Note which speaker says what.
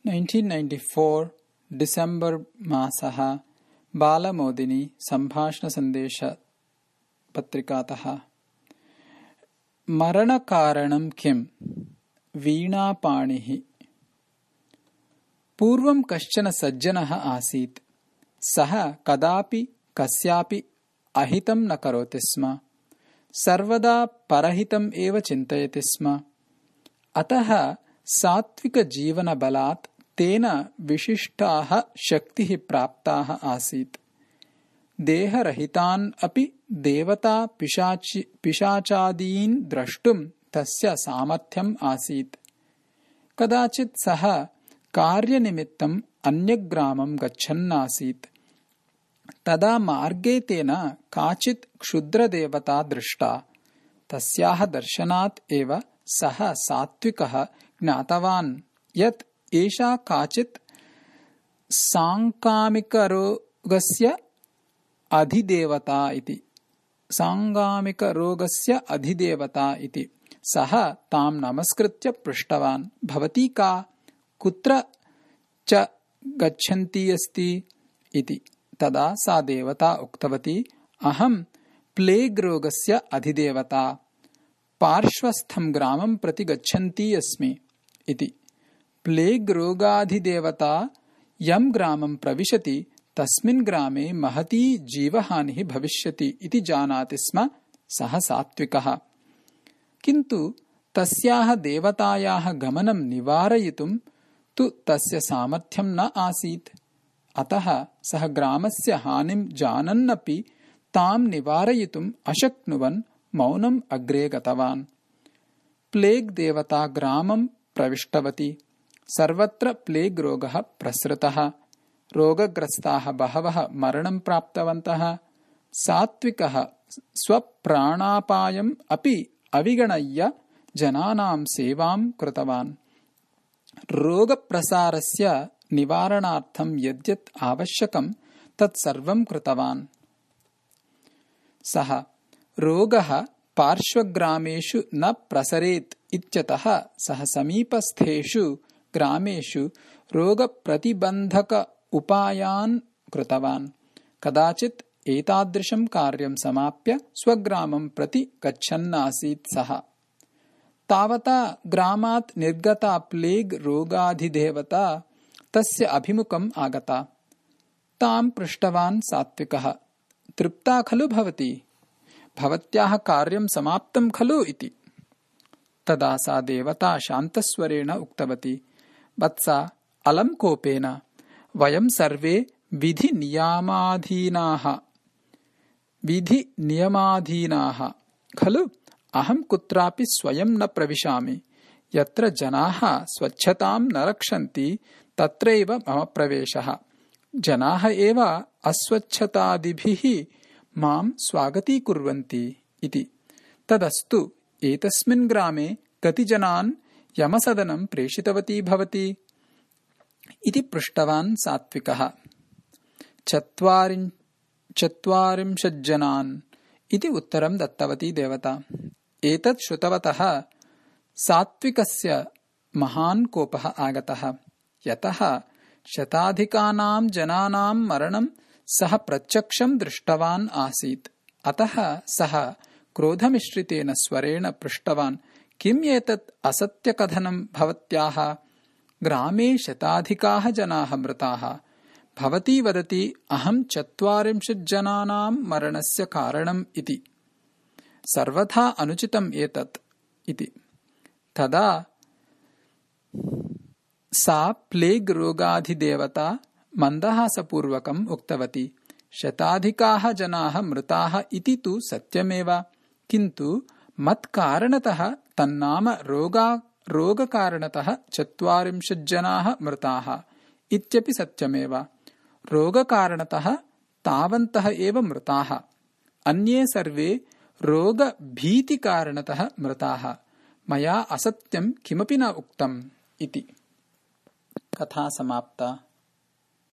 Speaker 1: 1994 December मासः बालमोदिनी सम्भाषणसन्देशपत्रिकातः। मरणकारणं किम्? वीणापाणिः। पूर्वं कश्चन सज्जनः आसीत्। सः कदापि कस्यापि अहितं न करोति स्म। सर्वदा परहितम् एव चिन्तयति स्म। अतः सात्विकजीवनबलात् तेन विशिष्टाः शक्तिः प्राप्ताः आसीत्। देहरहितान् अपि देवता पिशाचादीन् द्रष्टुं तस्य सामर्थ्यम् आसीत्। कदाचित् सः कार्यनिमित्तम् अन्यग्रामं गच्छन्नासीत्। तदा मार्गे तेन काचित् क्षुद्रदेवता दृष्टा। तस्याः दर्शनात् एव सः सात्विकः ज्ञातवान् यत् एषा काचित् साङ्गामिकरोगस्य अधिदेवता इति। सः तां नमस्कृत्य पृष्टवान्, भवती का? कुत्र च गच्छन्ती अस्ति इति। तदा सा देवता उक्तवती, अहं प्लेग् रोगस्य अधिदेवता, पार्श्वस्थं ग्रामं प्रति गच्छन्ती अस्मि इति। प्लेग् रोगाधिदेवता यं ग्रामं प्रविशति तस्मिन् ग्रामे महती जीवहानिः भविष्यति इति जानाति स्म सः सात्विकः। किन्तु तस्याः देवतायाः गमनं निवारयितुं तु तस्य सामर्थ्यं न आसीत्। अतः सः ग्रामस्य हानिं जानन्नपि तां निवारयितुम् अशक्नुवन् मौनम् अग्रे गतवान्। प्लेग् देवता ग्रामं प्रविष्टवती। सर्वत्र प्लेग् रोगः प्रसृतः। रोगग्रस्ताः बहवः मरणं प्राप्तवन्तः। सात्विकः स्वप्राणापायम् अपि अविगणय्य जनानां सेवां कृतवान्। रोगप्रसारस्य निवारणार्थं यद्यत् आवश्यकं तत्सर्वं कृतवान्। सः रोगः पार्श्वग्रामेषु न प्रसरेत् इत्यतः सः समीपस्थेषु ग्रामेषु रोगप्रतिबन्धक उपायान् कृतवान्। कदाचित् एतादृशं कार्यं समाप्य स्वग्रामं प्रति गच्छन्नासीत् सः। तावता ग्रामात् निर्गता प्लेग् रोगाधिदेवता तस्य अभिमुखम् आगता। तां पृष्टवान् सात्विकः, तृप्ता खलु भवती? भवत्याः कार्यं समाप्तं खलु इति। तदा सा देवता शान्तस्वरेण उक्तवती, वत्सा, अलं कोपेन, वयं सर्वे विधिनियमाधीनाः खलु। अहं कुत्रापि स्वयं न प्रविशामि। यत्र जनाः स्वच्छतां न रक्षन्ति तत्रैव मम प्रवेशः। जनाः एव अस्वच्छतादिभिः मां स्वागतीकुर्वन्ति इति। तदस्तु, एतस्मिन् ग्रामे कति जनान् यमसदनं प्रेषितवती भवती इति पृष्टवान् सात्विकः। 40 जनान् इति उत्तरं दत्तवती देवता। एतत् श्रुतवतः सात्विकस्य महान् कोपः आगतः। यतः शताधिकानां जनानां मरणं सः प्रत्यक्षं दृष्टवान् आसीत्। अतः सः क्रोधमिश्रितेन स्वरेण पृष्टवान्, किम् एतत् असत्यकथनं भवत्याः? ग्रामे शताधिकाः जनाः मृताः। भवती वदति अहं 40 जनानां मरणस्य कारणम् इति। सर्वथा अनुचितम् एतत् इति। तदा सा प्लेग् रोगाधिदेवता मन्दहासपूर्वकम् उक्तवती, शताधिकाः जनाः मृताः इति तु सत्यमेव, किन्तु मत्कारणतः तन्नाम रोगकारणतः 40 जनाः मृताः इत्यपि सत्यमेव। रोगकारणतः तावन्तः एव मृताः। अन्ये सर्वे रोगभीतिकारणतः मृताः। मया असत्यं किमपि न उक्तम् इति। कथा समाप्ता।